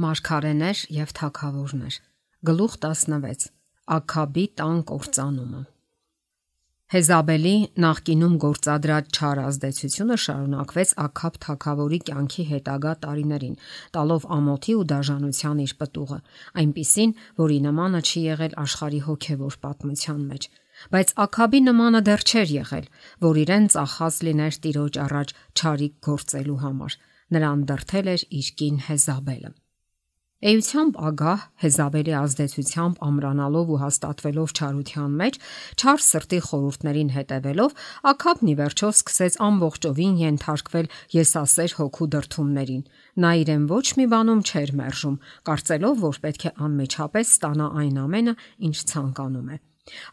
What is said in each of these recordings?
Մարգարեներ եւ թագավորներ։ Գլուխ 16. Աքաբի տան կործանումը։ Հեզաբելի նախկինում գործադրած չար ազդեցությունը շարունակվեց Աքաբ թագավորի կյանքի հետագա տարիներին, տալով ամոթի ու դաժանության իր պտուղը, այնպիսին, որի նմանը չի եղել աշխարհի հոգևոր պատմության մեջ։ Բայց Աքաբի նմանը դեռ չէր եղել, որ իրեն ծախած լիներ Տիրոջ առաջ չարիք գործելու համար։ Նրան դրդել էր իր կին Հեզաբելը։ Էությամբ ագահ Հեզաբելի ազդեցությամբ ամրանալով ու հաստատվելով չարության մեջ, չար սրտի խորհուրդներին հետևելով, Աքաբն ի վերջո սկսեց ամբողջովին ենթարկվել եսասեր հոգու դրդումներին։ Նա իրեն ոչ մի բանում չէր մերժում, կարծելով, որ պետք է անմիջապես ստանա այն ամենը, ինչ ցանկանում է։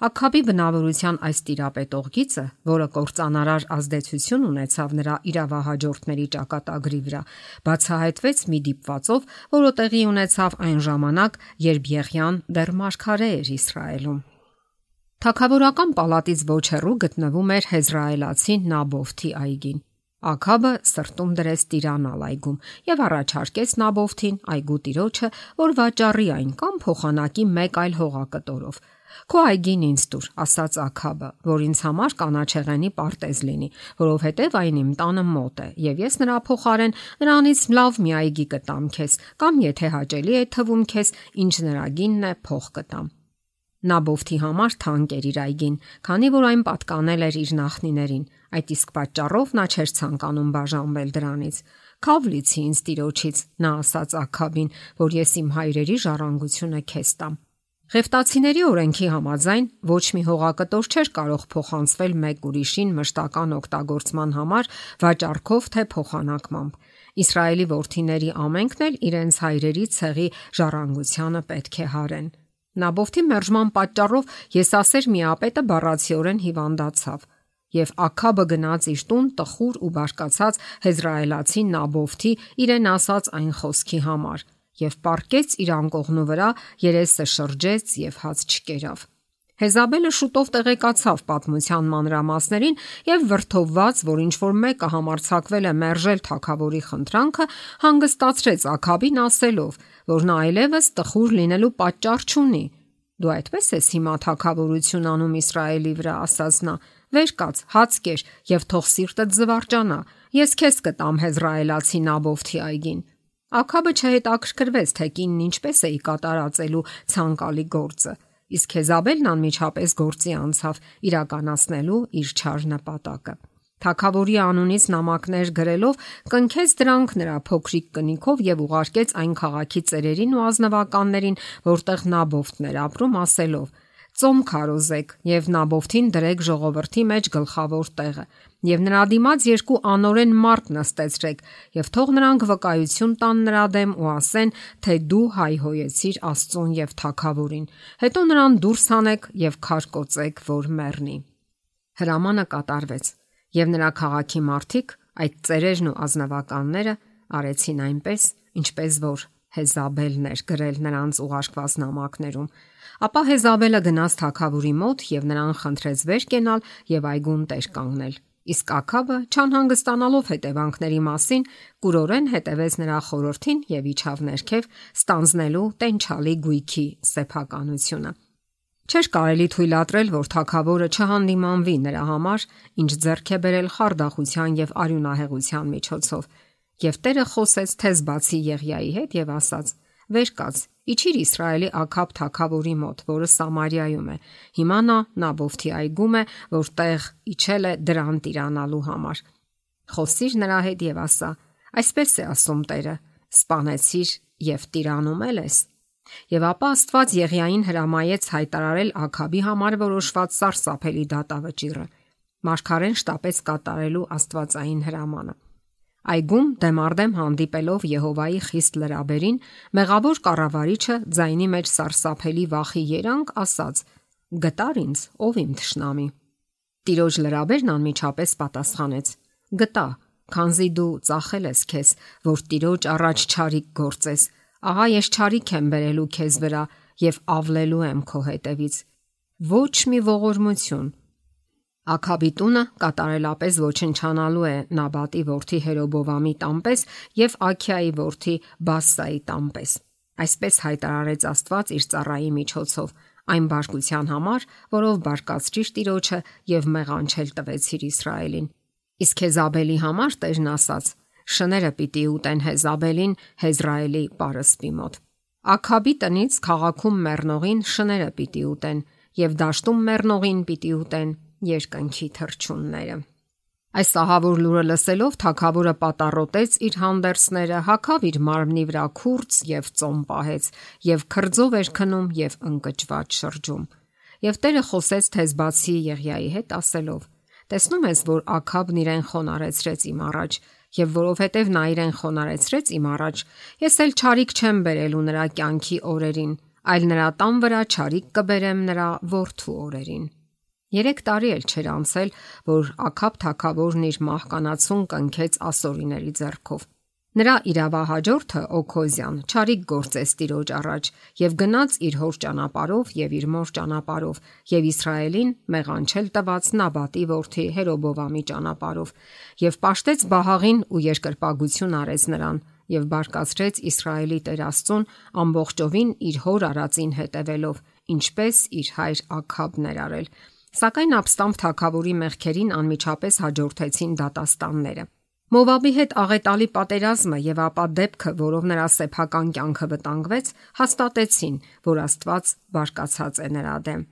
Աքաբի բնավորության այս տիրապետող գիծը, որը կործանարար ազդեցություն ունեցավ նրա իրավահաջորդների ճակատագրի վրա, բացահայտվեց մի դիպվածով, որը տեղի ունեցավ այն ժամանակ, երբ Եղիան դեռ մարգարե էր Իսրայելում։ Թագավորական պալատից ոչ հեռու գտնվում էր հեզրայելացի Նաբովթի այգին։ Աքաբը սրտում դրեց տիրանալ այգում եւ առաջարկեց Նաբովթին այգու տիրոջը, որ վաճառի այն կամ փոխանակի մեկ այլ հողակտորով։ Քո այգին ինձ տուր, ասաց Աքաբը, որ ինձ համար կանաչեղենի պարտեզ լինի, որովհետև այն իմ տանը մոտ է, եւ ես նրա փոխարեն նրանից լավ մի այգի կտամ քեզ, կամ եթե հաճելի է թվում քեզ, ինչ նրա գինն է, փող կտամ։ Նաբովթի համար թանկ էր իր այգին, քանի որ այն պատկանել էր իր նախնիներին, այդ իսկ պատճառով նա չէր ցանկանում բաժանվել դրանից։ Քավ լիցի ինձ տիրոջից, նա ասաց Աքաբին, որ ես իմ հայրերի ժառանգությունը քեզ տամ։ Ղևտացիների օրենքի համաձայն ոչ մի հողակտոր չէր կարող փոխանցվել մեկ ուրիշին մշտական օգտագործման համար վաճառքով թե փոխանակմամբ։ Իսրայելի որդիների ամենքն էլ իրենց հայրերի ցեղի ժառանգությանը պետք է հարեն։ Նաբովթի մերժման պատճառով եսասեր միապետը բառացիորեն հիվանդացավ, եւ Աքաբը գնաց իր տուն տխուր ու բարկացած հեզրայելացի Նաբովթի իրեն ասած այն խոսքի համար եւ պառկեց իր անկողնու վրա, երեսը շրջեց եւ հաց չկերավ։ Հեզաբելը շուտով տեղեկացավ պատմության մանրամասներին եւ վրդովված, որ ինչ որ մեկը համարձակվել է մերժել թագավորի խնդրանքը, հանգստացրեց Աքաբին ասելով, որ նա այլևս տխուր լինելու պատճառ չունի։ Դու այդպես ես հիմա թագավորություն անում Իսրայելի վրա, ասաց նա։ Վեր կաց, հաց կեր եւ թող սիրտդ զվարճանա։ Ես քեզ կտամ հեզրայելացի Նաբովթի այգին։ Աքաբը չհետաքրքրվեց, թե կինն ինչպես է կատարածելու ցանկալի գործը, իսկ Հեզաբելն անմիջապես գործի անցավ իրականացնելու իր չար նպատակը։ Թագավորի անունից նամակներ գրելով կնքեց դրանք նրա փոքրիկ կնիքով եւ ուղարկեց այն քաղաքի ծերերին ու ազնվականներին, որտեղ Նաբովթն էր ապրում, ասելով. Ծոմ քարոզեք եւ Նաբովթին դրեք ժողովրդի մեջ գլխավոր տեղը եւ նրա դիմաց երկու անօրեն մարդ նստեցրեք եւ թող նրանք վկայություն տան նրա դեմ ու ասեն, թե դու հայհոյեցիր Աստծուն եւ թագավորին, հետո նրան դուրս հանեք եւ քարկոծեք, որ մեռնի։ Հրամանը կատարվեց եւ նրա քաղաքի մարդիկ, այդ ծերերն ու ազնվականները արեցին այնպես, ինչպես որ Հեզաբելն էր գրել նրանց ուղարկված նամակներում։ Ապա Հեզաբելը գնաց թագավորի մոտ եւ նրան խնդրեց վեր կենալ եւ այգուն տեր կանգնել։ Իսկ Աքաբը, չանհանգստանալով հետևանքների մասին, կուրորեն հետևեց նրա խորհրդին եւ իջավ ներքև, ստանձնելու տենչալի գույքի սեփականությունը։ Չէր կարելի թույլատրել, որ թագավորը չհանդիմանվի նրա համար, ինչ ձեռք է բերել խարդախության եւ արյունահեղության միջոցով։ Եվ Տերը խոսեց թեզ բացի Եղիայի հետ եւ ասաց. Վեր կաց, իջիր Իսրայելի Աքաբ թագավորի մոտ, որը Սամարիայում է։ Հիմա նա Նաբովթի այգում է, որտեղ իջել է դրան տիրանալու համար։ Խոսիր նրա հետ եւ ասա. այսպես է ասում Տերը. սպանեցիր եւ տիրանում ես։ Եվ ապա Աստված Եղիային հրամայեց հայտարարել Աքաբի համար որոշված սարսափելի դատավճիռը։ Մարգարեն շտապեց կատարելու աստվածային հրամանը։ Այգում դեմարդեմ հանդիպելով Եհովայի խիստ լրաբերին, մեղավոր կառավարիչը ձայնի մեջ սարսափելի վախի երանգ ասաց. Գտար ինձ, ով իմ թշնամի։ Տիրոջ լրաբերն անմիջապես պատասխանեց. Գտա, քանզի դու ծախել ես քեզ, որ Տիրոջ առաջ չարիք գործես։ Ահա ես չարիք եմ բերելու քեզ վրա եւ ավլելու եմ քո հետևից։ Ոչ մի ողորմություն։ Աքաբի տունը կատարելապես ոչնչանալու է Նաբատի որդի Հերոբովամի տամպես եւ Աքիայի որդի Բասսայի տամպես։ Այսպես հայտարարեց Աստված իր ծառայի միջոցով, այն բարկության համար, որով բարկացրիր Տիրոջը եւ մեղանչել տվեցիր Իսրայելին։ Իսկ Հեզաբելի համար Տերն ասաց. շները պիտի ուտեն Հեզաբելին Հեզրայելի պարսպի մոտ։ Աքաբի տնից քաղաքում մեռնողին շները պիտի ուտեն եւ դաշտում մեռնողին պիտի ուտեն երկնքի թռչունները։ Այս ահավոր լուրը լսելով թագավորը պատառոտեց իր հանդերձները, հագավ իր մարմնի վրա քուրձ եւ ծոմ պահեց եւ քրձով էր քնում եւ ընկճված շրջում։ Եվ Տերը խոսեց Թեզբացի Եղիայի հետ ասելով. տեսնում ես, որ Աքաբն իրեն խոնարեցրեց իմ առաջ, եւ որովհետեւ նա իրեն խոնարեցրեց իմ առաջ, ես էլ չարիք չեմ բերելու նրա կյանքի օրերին, այլ նրա տան վրա չարիք կբերեմ նրա որդու օրերին։ 3 տարի էլ չէր անցել, որ Աքաբ թագավորն իր մահկանացուն կնքեց ասորիների ձեռքով։ Նրա իրավահաջորդը Օքոզյան չարիք գործեց Տիրոջ առաջ եւ գնաց իր հոր ճանապարով եւ իր մոր ճանապարով եւ Իսրայելին մեղանչել տված Նաբատի որդի Հերոբովամի ճանապարով եւ պաշտեց Բահաղին ու երկրպագություն արեց նրան եւ բարկացրեց Իսրայելի Տեր Աստծուն ամբողջովին իր հոր արածին հետևելով, ինչպես իր հայր Աքաբն էր արել։ Սակայն ապստամբ թագավորի մեղքերին անմիջապես հաջորդեցին դատաստանները։ Մովաբի հետ աղետալի պատերազմը եւ ապա դեպքը, որով նրա սեփական կյանքը վտանգվեց, հաստատեցին, որ Աստված բարկացած է նրա դեմ։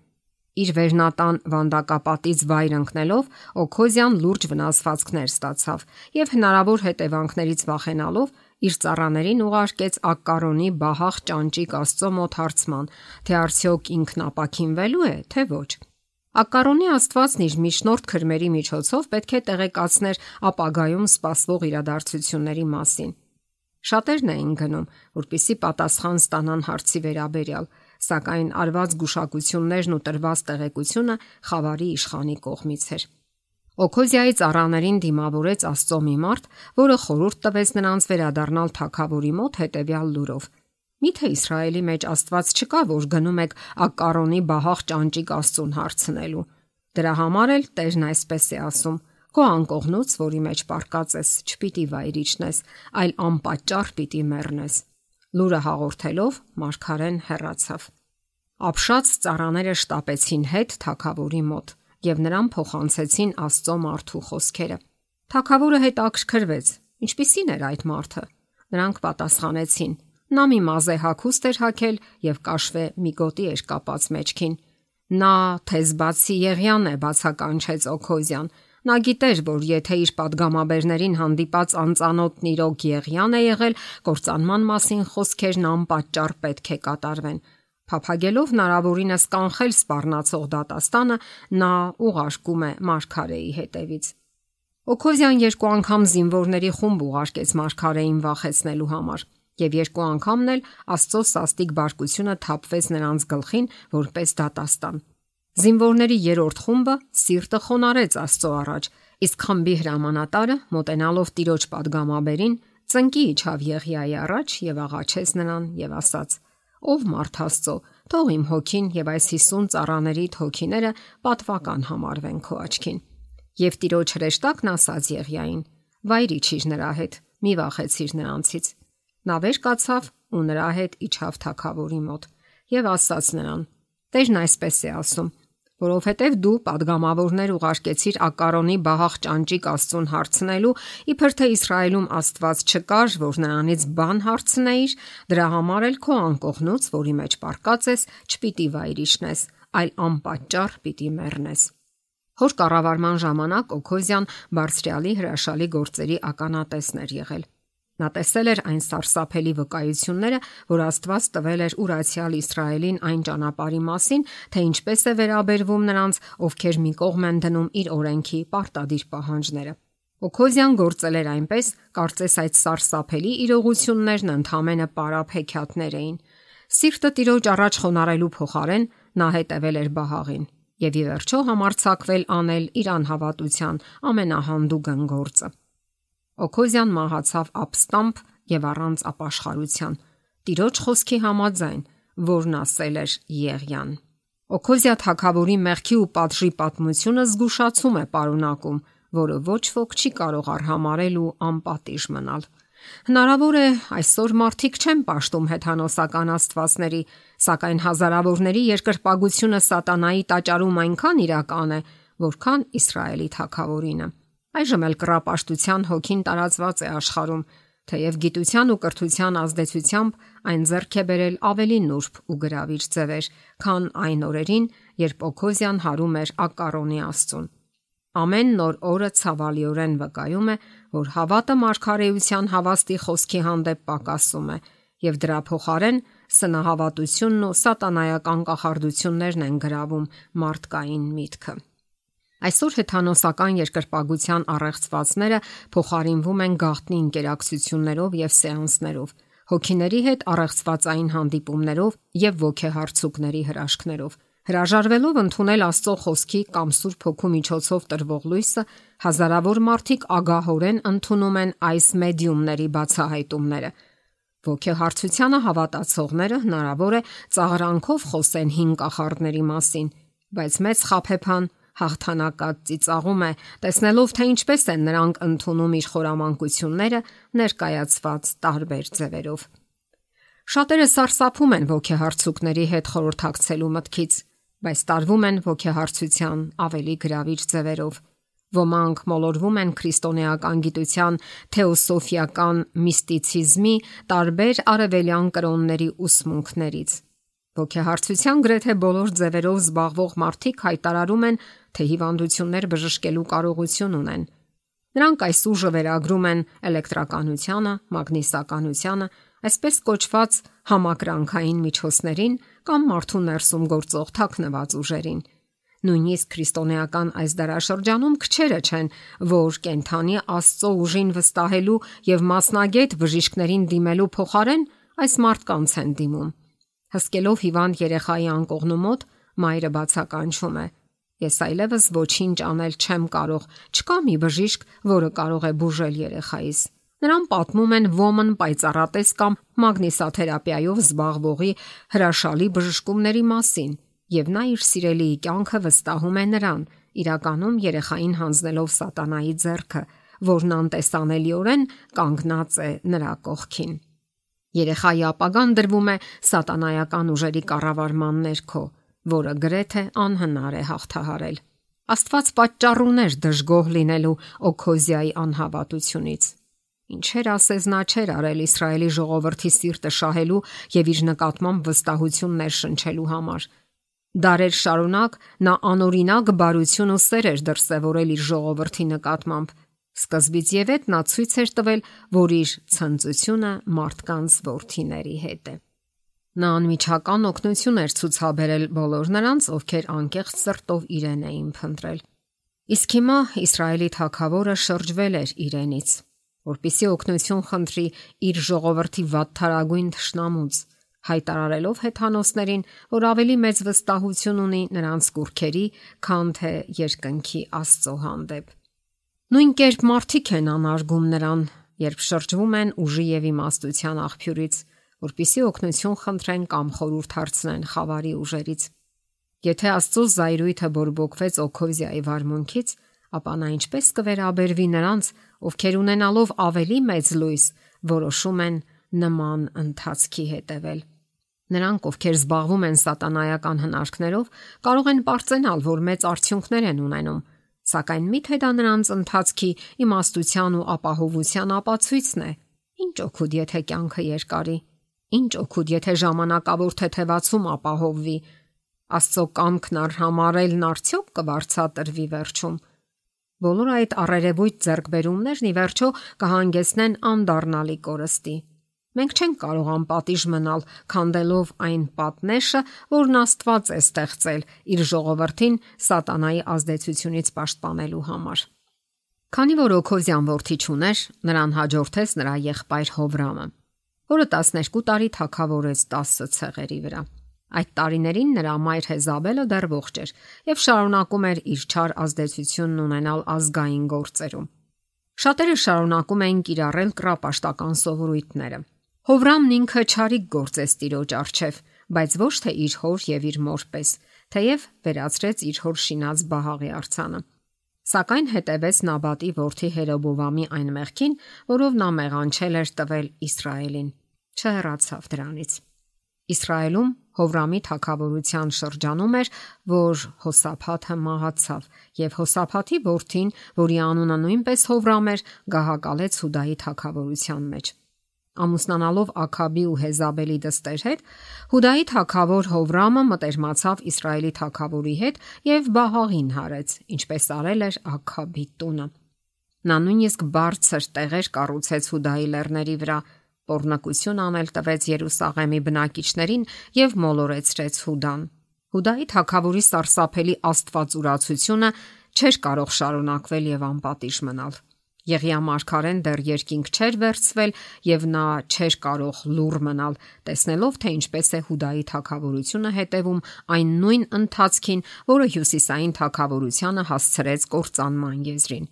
Իր վերնատան վանդակապատից վայր ընկնելով Օքոզյան լուրջ վնասվածքներ ստացավ եւ հնարավոր հետևանքներից վախենալով իր ծառաներին ուղարկեց Ակկարոնի Բահաղ ճանճիկ Աստծո մոտ հարցման, թե արդյոք ինքն ապաքինվելու է, թե ոչ։ Ակկարոնի Աստվածն իր միջնորդ քրմերի միջոցով պետք է տեղեկացներ ապագայում սպասվող իրադարձությունների մասին։ Շատերն էին գնում, որպեսզի պատասխան ստանան հարցի վերաբերյալ, սակայն արված գուշակություններն ու տրված տեղեկությունը խավարի իշխանի կողմից էր։ Օքոզիայի ծառաներին դիմավորեց Աստծո մի մարդ, որը խորհուրդ տվեց նրանց վերադառնալ թագավորի մոտ հետևյալ լուրով. Միթե Իսրայելի մեջ Աստված չկա, որ գնում եք Ակկարոնի Բահաղ ճանճիկ Աստծուն հարցնելու։ Դրա համար էլ Տերն այսպես է ասում. Քո անկողնուց, որի մեջ պարկած ես, չպիտի վայր իջնես, այլ անպատճառ պիտի մեռնես։ Լուրը հաղորդելով մարգարեն հեռացավ։ Ապշած ծառաները շտապեցին հետ թագավորի մոտ եւ նրան փոխանցեցին Աստծո մարդու խոսքերը։ Թագավորը հետաքրքրվեց. ինչպիսին էր այդ մարդը։ Նրանք պատասխանեցին. նա մի մազե հագուստ էր հագել եւ կաշվե մի գոտի էր կապած մեջքին։ Նա Թեզբացի Եղիան է, բացականչեց Օքոզյան։ Նա գիտեր, որ եթե իր падգամաբերներին հանդիպած անծանոթ նիրոք Եղիան է եղել, կործանման մասին խոսքերն անպատճառ պետք է կատարվեն։ Փափագելով հնարավորինս կանխել սպառնացող դատաստանը, նա ուղարկում է մարգարեի հետևից։ Օքոզյան 2 անգամ զինվորների խումբ ուղարկեց մարգարեին վախեցնելու համար, եւ 2 անգամն էլ Աստծո սաստիկ բարկությունը թափվեց նրանց գլխին որպես դատաստան։ Զինվորների 3-րդ խումբը սիրտը խոնարհեց Աստծո առաջ, իսկ խմբի հրամանատարը, մոտենալով Տիրոջ падգամաբերին, ծնկի իջավ Եղիայի առաջ եւ աղաչեց նրան եւ ասաց. Ով մարդ Աստծո, թող իմ հոգին եւ այս 50 ծառաների հոգիները պատվական համարվեն քո աչքին։ Եվ Տիրոջ հրեշտակն ասաց Եղիային. վայր իջիր նրա հետ, մի վախեցիր նրանցից։ Նա վեր կացավ ու նրա հետ իջավ թագավորի մոտ եւ ասաց նրան. Տերն այսպես է ասում, որովհետև դու падգամավորներ ուղարկեցիր Ակկարոնի Բահաղ ճանճիկ Աստծուն հարցնելու, իբր թե Իսրայելում Աստված չկար, որ նրանից բան հարցնեիր, դրա համար էլ քո անկողնուց, որի մեջ պարկած ես, չպիտի վայր իջնես, այլ անպատճառ պիտի մեռնես։ Հոր կառավարման ժամանակ Օքոզյան բարձրյալի հրաշալի գործերի ականատեսն էր եղել։ Նա տեսել էր այն սարսափելի վկայությունները, որ Աստված տվել էր ուրացյալ Իսրայելին այն ճանապարհի մասին, թե ինչպես է վերաբերվում նրանց, ովքեր մի կողմ են դնում իր օրենքի պարտադիր պահանջները։ Օքոզյան գործել էր այնպես, կարծես այդ սարսափելի իրողություններն ընդհանրապես պարապ հեքիաթներ էին։ Սիրտը Տիրոջ առաջ խոնարհելու փոխարեն նա հետևել էր Բահաղին եւ ի վերջո համարձակվել անել իր անհավատության ամենահանդուգն գործը։ Օքոզյան մահացավ ապստամբ եւ առանց ապաշխարության, Տիրոջ խոսքի համաձայն, որն ասել էր Եղիան։ Օքոզիա թագավորի մեղքի ու պատժի պատմությունը զգուշացում է պարունակում, որը ոչ ոք չի կարող արհամարել ու անպատիժ մնալ։ Հնարավոր է այսօր մարդիկ չեն պաշտում հեթանոսական աստվածների, սակայն հազարավորների երկրպագությունը սատանայի տաճարում այնքան իրական է, որքան Իսրայելի թագավորինը։ Այժմ էլ կռապաշտության հոգին տարածված է աշխարհում, թեև գիտության ու կրթության ազդեցությամբ այն ձեռք է բերել ավելի նուրբ ու գրավիչ ձևեր, քան այն օրերին, երբ Օքոզիան հարում էր Ակկարոնի Աստծուն։ Ամեն նոր օրը ցավալիորեն վկայում է, որ հավատը մարգարեության հավաստի խոսքի հանդեպ պակասում է, եւ դրա փոխարեն սնահավատությունն ու սատանայական կախարդություններն են գրավում մարդկային միտքը։ Այսօր հեթանոսական երկրպագության առեղծվածները փոխարինվում են գաղտնի ինտերակցիաներով եւ սեանսներով, հոգիների հետ առեղծվածային հանդիպումներով եւ ոգեհարցուկների հրաշքներով։ Հրաժարվելով ընդունել Աստծո խոսքի կամ Սուրբ Հոգու միջոցով տրվող լույսը, հազարավոր մարդիկ ագահորեն ընդունում են այս մեդիումների բացահայտումները։ Ոգեհարցությանը հավատացողները հնարավոր է ծաղրանքով խոսեն հին կախարդների մասին, բայց մեծ խաբեբան հաղթանակած ծիծաղում է, տեսնելով թե ինչպես են նրանք ընդունում իր խորամանկությունները ներկայացված տարբեր ձևերով։ Շատերը սարսափում են ոգեհարցուկների հետ խորհրդակցելու մտքից, բայց տարվում են ոգեհարցության ավելի գրավիչ ձևերով։ Ոմանք մոլորվում են քրիստոնեական գիտության թեոսոֆիական միստիցիզմի տարբեր արևելյան կրոնների ուսմունքներից։ Ոգեհարցության գրեթե բոլոր ձևերով զբաղվող մարդիկ հայտարարում են, թե հիվանդություններ բժշկելու կարողություն ունեն։ Նրանք այս ուժը վերագրում են էլեկտրականությանը, մագնիսականությանը, այսպես կոչված համակրանքային միջոցներին կամ մարդու ներսում գործող թաքնված ուժերին։ Նույնիսկ քրիստոնեական այս դարաշրջանում քչերը չեն, որ կենթանի Աստծո ուժին վստահելու եւ մասնագետ բժիշկներին դիմելու փոխարեն այս մարդկանց են դիմում։ Հսկելով հիվանդ երեխայի անկողնու մոտ, մայրը բացականչում է. Ես այլևս ոչինչ անել չեմ կարող, չկա մի բժիշկ, որը կարող է բուժել երեխայիս։ Նրան պատմում են ոմն պայծառատես կամ մագնիսաթերապիայով զբաղվողի հրաշալի բժշկումների մասին, եւ նա իր սիրելիի կյանքը վստահում է նրան, իրականում երեխային հանձնելով սատանայի ձեռքը, որն անտեսանելիորեն կանգնած է նրա կողքին։ Երեխայի ապագան դրվում է սատանայական ուժերի կառավարման ներքո, որը գրեթե անհնար է հաղթահարել։ Աստված պատճառ ուներ դժգոհ լինելու Օքոզիայի անհավատությունից։ Ինչեր ասես նա չէր արել Իսրայելի ժողովրդի սիրտը շահելու եւ իր նկատմամբ վստահություն ներշնչելու համար։ Դարեր շարունակ նա անօրինակ բարություն ու սեր էր դրսևորել իր ժողովրդի նկատմամբ։ Սկզբից եւ հետ նա ցույց էր տվել, որ իր ցնծությունը մարդկանց որդիների հետ է։ Նա անմիջական օգնություն էր ցուցաբերել բոլոր նրանց, ովքեր անկեղծ սրտով իրեն էին փնտրել։ Իսկ հիմա Իսրայելի թագավորը շրջվել էր իրենից, որպեսզի օգնություն խնդրի իր ժողովրդի վատթարագույն թշնամուց, հայտարարելով հեթանոսներին, որ ավելի մեծ վստահություն ունի նրանց կուռքերի, քան թե երկնքի Աստծո հանդեպ։ Նույն կերպ մարդիկ են անարգում նրան, երբ շրջվում են ուժի եւ իմաստության աղբյուրից, որպեսզի օգնություն խնդրեն կամ խորհուրդ հարցնեն խավարի ուժերից։ Եթե Աստծո զայրույթը բորբոքվեց Օքոզիայի վարմունքից, ապա նա ինչպես կվերաբերվի նրանց, ովքեր ունենալով ավելի մեծ լույս, որոշում են նման ընթացքի հետևել։ Նրանք, ովքեր զբաղվում են սատանայական հնարքներով, կարող են պարծենալ, որ մեծ արդյունքներ են ունենում, սակայն միթե դա նրանց ընթացքի իմաստության ու ապահովության ապացույցն է։ Ինչ օգուտ, եթե կյանքը երկարի։ Ինչ օգուտ, եթե ժամանակավոր թեթևացում ապահովվի։ Աստծո կամքն արհամարելն արդյոք կվարձատրվի վերջում։ Բոլոր այդ առերևույթ ձեռքբերումներն ի վերջո կհանգեցնեն անդառնալի կորստի։ Մենք չենք կարող անպատիժ մնալ, քանդելով այն պատնեշը, որն Աստված է ստեղծել իր ժողովրդին սատանայի ազդեցությունից պաշտպանելու համար։ Քանի որ Օքոզիան որդի չուներ, նրան հաջորդեց նրա եղբայր Հովրամը, որը 12 տարի թագավորեց 10 ցեղերի վրա։ Այդ տարիներին նրա մայր Հեզաբելը դեռ ողջ էր եւ շարունակում էր իր չար ազդեցությունն ունենալ ազգային գործերում։ Շատերը շարունակում էին կիրառել կռապաշտական սովորույթները։ Հովրամն ինքը չարիք գործեց տիրոջ առջև, բայց ոչ թե իր հոր եւ իր մոր պես, թեև վերացրեց իր հոր շինած Բահաղի արձանը։ Սակայն հետևեց Նաբատի որդի Հերոբովամի այն մեղքին, որով նա մեղանչել էր տվել Իսրայելին։ Չհեռացավ դրանից։ Իսրայելում Հովրամի թագավորության շրջանում էր, որ Հոսափաթը մահացավ, եւ Հոսափաթի որդին, որի անունը նույնպես Հովրամ էր, գահակալեց Հուդայի թագավորության մեջ։ Ամուսնանալով Աքաբի ու Հեզաբելի դստեր հետ, Հուդայի թագավոր Հովրամը մտերմացավ Իսրայելի թագավորի հետ եւ Բահաղին հարեց, ինչպես արել էր Աքաբի տունը։ Նա նույնիսկ բարձր տեղեր կառուցեց Հուդայի լեռների վրա, պոռնկություն անել տվեց Երուսաղեմի բնակիչներին եւ մոլորեցրեց Հուդան։ Հուդայի թագավորի սարսափելի աստվածուրացությունը չէր կարող շարունակվել եւ անպատիժ մնալ։ Եղիա մարգարեն դեռ երկինք չէր վերցվել եւ նա չէր կարող լուռ մնալ, տեսնելով թե ինչպես է Հուդայի թագավորությունը հետևում այն նույն ընթացքին, որը հյուսիսային թագավորությանը հասցրեց կործանման եզրին։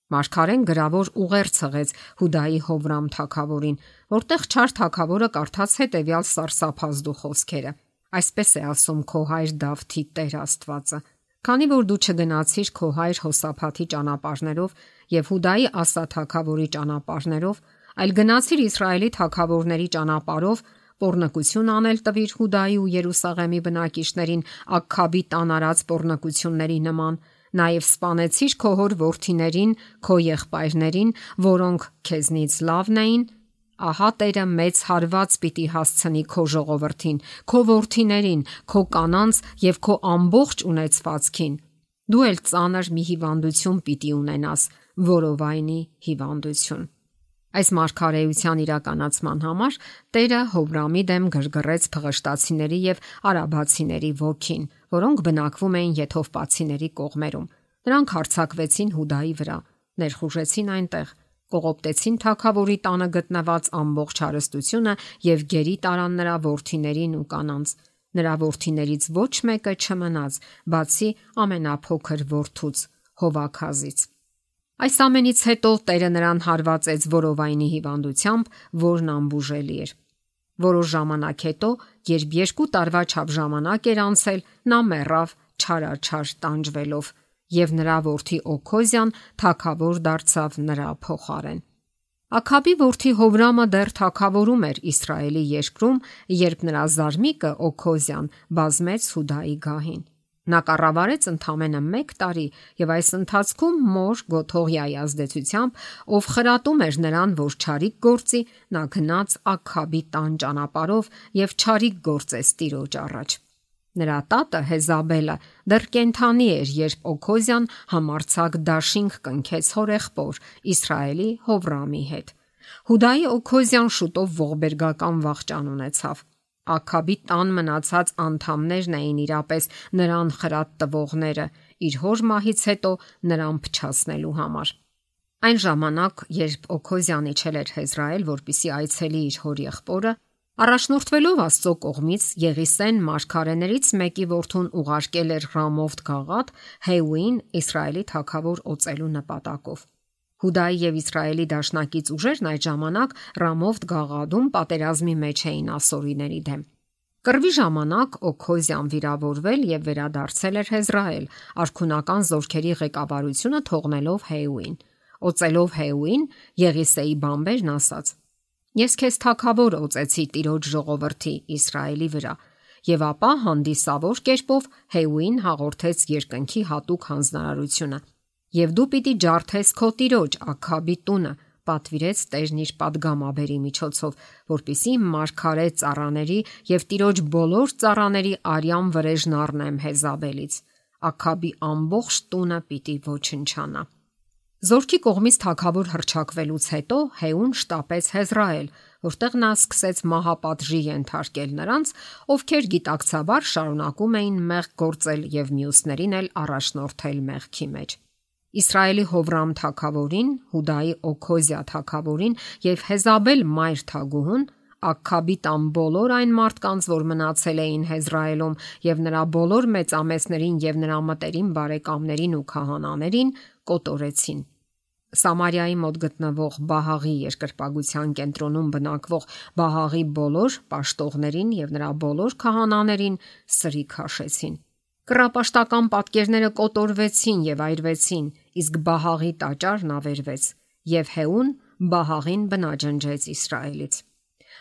Մարգարեն գրավոր ուղերձ հղեց Հուդայի Հովրամ թագավորին, որտեղ չար թագավորը կարդաց հետևյալ սարսափազդու խոսքերը. Այսպես է ասում քո հայր Դավթի Տեր Աստվածը. Քանի որ դու չգնացիր քո հայր Հոսափաթի ճանապարհներով եւ Հուդայի Ասա թագավորի ճանապարհներով, այլ գնացիր Իսրայելի թագավորների ճանապարհով, պոռնկություն անել տվիր Հուդայի ու Երուսաղեմի բնակիչներին Աքքաբի տան արած պոռնկությունների նման, նաեւ սպանեցիր քո հոր որդիներին, քո եղբայրներին, որոնք քեզնից լավն էին, ահա Տերը մեծ հարված պիտի հասցնի քո ժողովրդին, քո որդիներին, քո կանանց եւ քո ամբողջ ունեցվածքին։ Դու էլ ծանր մի հիվանդություն պիտի ունենաս, որովայնի հիվանդություն։ Այս մարգարեության իրականացման համար Տերը Հովրամի դեմ գրգռեց փղշտացիների եւ արաբացիների ոգին, որոնք բնակվում էին եթովպացիների կողմերում։ Նրանք հարձակվեցին Հուդայի վրա, ներխուժեցին այնտեղ, կողոպտեցին թագավորի տանը գտնված ամբողջ հարստությունը եւ գերի տարան նրա որդիներին ու կանանց։ Նրա որդիներից ոչ մեկը չմնաց, բացի ամենափոքր որդուց Հովաքազից։ Այս ամենից հետո Տերը նրան հարվածեց որովայնի հիվանդությամբ, որն անբուժելի էր։ Որոշ ժամանակ հետո, երբ 2 տարվա չափ ժամանակ էր անցել, նա մեռավ չարաչար տանջվելով, եւ նրա որդի Օքոզյան թագավոր դարձավ նրա փոխարեն։ Աքաբի որդի Հովրամը դեռ թագավորում էր Իսրայելի երկրում, երբ նրա զարմիկը Օքոզյան բազմեց Հուդայի գահին։ Նա կառավարեց ընդամենը 1 տարի եւ այս ընթացքում մոր Գոթողիայի ազդեցությամբ, ով խրատում էր նրան, որ չարիք գործի, նա գնաց Աքաբի տան ճանապարհով եւ չարիք գործեց Տիրոջ առաջ։ Նրա տատը Հեզաբելը դեռ կենթանի էր, երբ Օքոզյան համարձակ դաշինք կնքեց հորեղբոր Իսրայելի Հովրամի հետ։ Հուդայի Օքոզյան շուտով ողբերգական վախճան ունեցավ։ Աքաբի տան մնացած անդամներն էին իրապես նրան խրատ տվողները, իր հոր մահից հետո նրան փչացնելու համար։ Այն ժամանակ, երբ Օքոզյանը իջել էր Հեզրայել, որպեսզի այցելի իր հոր եղբորը, առաջնորդվելով Աստծո կողմից Եղիսեն մարգարեներից մեկի որդուն ուղարկել էր Ռամովթ Գաղադ Հեուին Իսրայելի թագավոր օծելու նպատակով։ Հուդայի եւ Իսրայելի դաշնակից ուժերն այդ ժամանակ Ռամովթ Գաղադում պատերազմի մեջ էին ասորիների դեմ։ Կռվի ժամանակ Օքոզյան վիրավորվել եւ վերադարձել էր Հեզրայել, արքունական զորքերի ղեկավարությունը թողնելով Հեուին։ Օծելով Հեուին, Եղիսեի բամբերն ասաց. Ես քեզ թագավոր օծեցի Տիրոջ ժողովրդի Իսրայելի վրա, եւ ապա հանդիսավոր կերպով Հեուին հաղորդեց երկնքի հատուկ հանձնարարությունը։ Եվ դու պիտի ջարդես քո Տիրոջ Աքաբի տունը, պատվիրեց Տերն իր падգամաբերի միջոցով, որպիսի մարգարե ծառաների եւ Տիրոջ բոլոր ծառաների արյան վրեժն առնեմ Հեզաբելից։ Աքաբի ամբողջ տունը պիտի ոչնչանա։ Զորքի կողմից թագավոր հռչակվելուց հետո Հեուն շտապեց Հեզրայել, որտեղ նա սկսեց մահապատժի ենթարկել նրանց, ովքեր գիտակցաբար շարունակում էին մեղք գործել եւ մյուսներին էլ առաջնորդել մեղքի մեջ։ Իսրայելի Հովրամ թագավորին, Հուդայի Օքոզիա թագավորին եւ Հեզաբել մայր թագուհուն, Աքքաբի տան բոլոր այն մարդկանց, որ մնացել էին Հեզրայելում, եւ նրա բոլոր մեծամեծներին եւ նրա մտերիմ բարեկամներին ու քահանաներին կոտորեցին։ Սամարիայի մոտ գտնվող Բահաղի երկրպագության կենտրոնում բնակվող Բահաղի բոլոր պաշտողներին եւ նրա բոլոր քահանաներին սրիկ հաշեցին։ Կռապաշտական պատկերները կոտորվեցին եւ այրվեցին, իսկ Բահաղի տաճարն ավերվեց, եւ Հեուն Բահաղին բնաջնջեց Իսրայելից։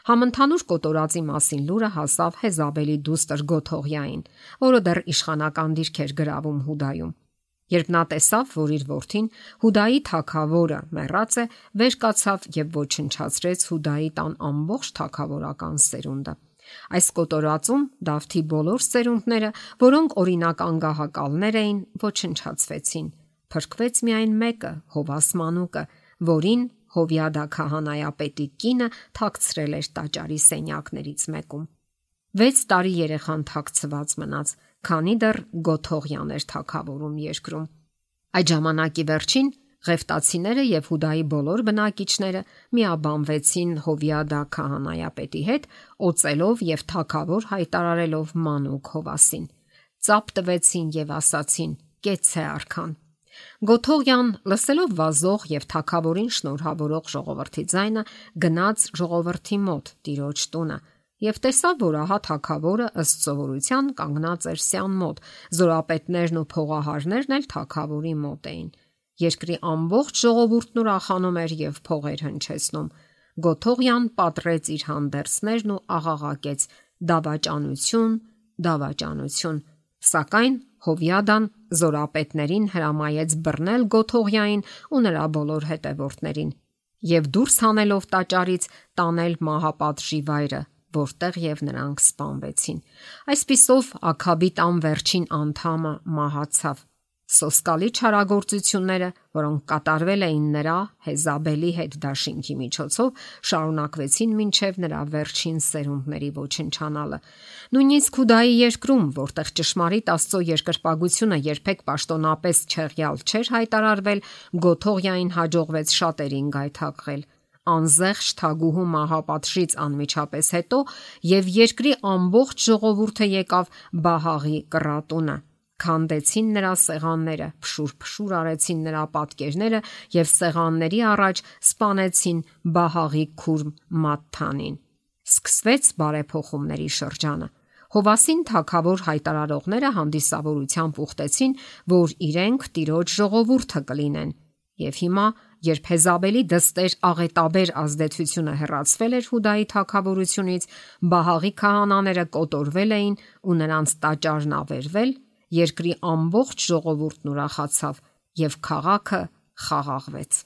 Համընդհանուր կոտորածի մասին լուրը հասավ Հեզաբելի դուստր Գոթողյային, որը դեռ իշխանական դիրք էր գրավում Հուդայում։ Երբ նա տեսավ, որ իր որդին Հուդայի թագավորը մեռած է, վեր կացավ եւ ոչնչացրեց Հուդայի տան ամբողջ թագավորական սերունդը։ Այս կոտորածում Դավթի բոլոր սերունդները, որոնք օրինական գահակալներ էին, ոչնչացվեցին։ Փրկվեց միայն մեկը, Հովաս մանուկը, որին Հովյադա քահանայապետի կինը թաքցրել էր տաճարի սենյակներից մեկում։ 6 տարի երեխան թաքցված մնաց, քանի դեռ Գոթողյան էր թագավորում երկրում։ Այդ ժամանակի վերջին Ղեֆտացիները եւ Հուդայի բոլոր բնակիչները միաբանվեցին Հովյադա քահանայապետի հետ, օծելով եւ թագավոր հայտարարելով մանուկ Հովասին։ Ծափ տվեցին եւ ասացին. «Կեցցե արքան»։ Գոթողյան, լսելով վազող եւ թագավորին շնորհավորող ժողովրդի ձայնը, գնաց ժողովրդի մոտ տիրոջ տունը եւ տեսավ, որ ահա թագավորը ըստ սովորության կանգնած էր սյան մոտ, զորապետներն ու փողահարներն էլ թագավորի մոտ էին։ Երկրի ամբողջ ժողովուրդն ուրախանում էր եւ փողեր հնչեցնում։ Գոթողյան պատռեց իր հանդերձներն ու աղաղակեց. «Դավաճանություն, դավաճանություն»։ Սակայն Հովյադան զորապետներին հրամայեց բռնել Գոթողյային ու նրա բոլոր հետևորդներին եւ դուրս հանելով տաճարից տանել մահապատժի վայրը, որտեղ եւ նրանք սպանվեցին։ Այսպիսով Աքաբի տան վերջին անդամը մահացավ։ Սոսկալի չարագործությունները, որոնք կատարվել էին նրա Հեզաբելի հետ դաշինքի միջոցով, շարունակվեցին մինչև նրա վերջին սերունդների ոչնչանալը։ Նույնիսկ Հուդայի երկրում, որտեղ ճշմարիտ Աստծո երկրպագությունը երբեք պաշտոնապես չեղյալ չէր հայտարարվել, Գոթողյային հաջողվեց շատերին գայթակղել։ Անզեղչ թագուհու մահապատժից անմիջապես հետո եւ երկրի ամբողջ ժողովուրդը եկավ Բահաղի կռատունը, քանդեցին նրա սեղանները, փշուր արեցին նրա պատկերները եւ սեղանների առաջ սպանեցին Բահաղի քուրմ Մատթանին։ Սկսվեց բարեփոխումների շրջանը։ Հովասին թագավոր հայտարարողները հանդիսավորությամբ ուխտեցին, որ իրենք տիրոջ ժողովուրդը կլինեն։ Եվ հիմա, երբ Հեզաբելի դստեր աղետաբեր ազդեցությունը հեռացվել էր Հուդայի թագավորությունից, Բահաղի քահանաները կոտորվել էին ու նրանց տաճարն ավերվել, երկրի ամբողջ ժողովուրդն ուրախացավ եւ քաղաքը խաղաղվեց։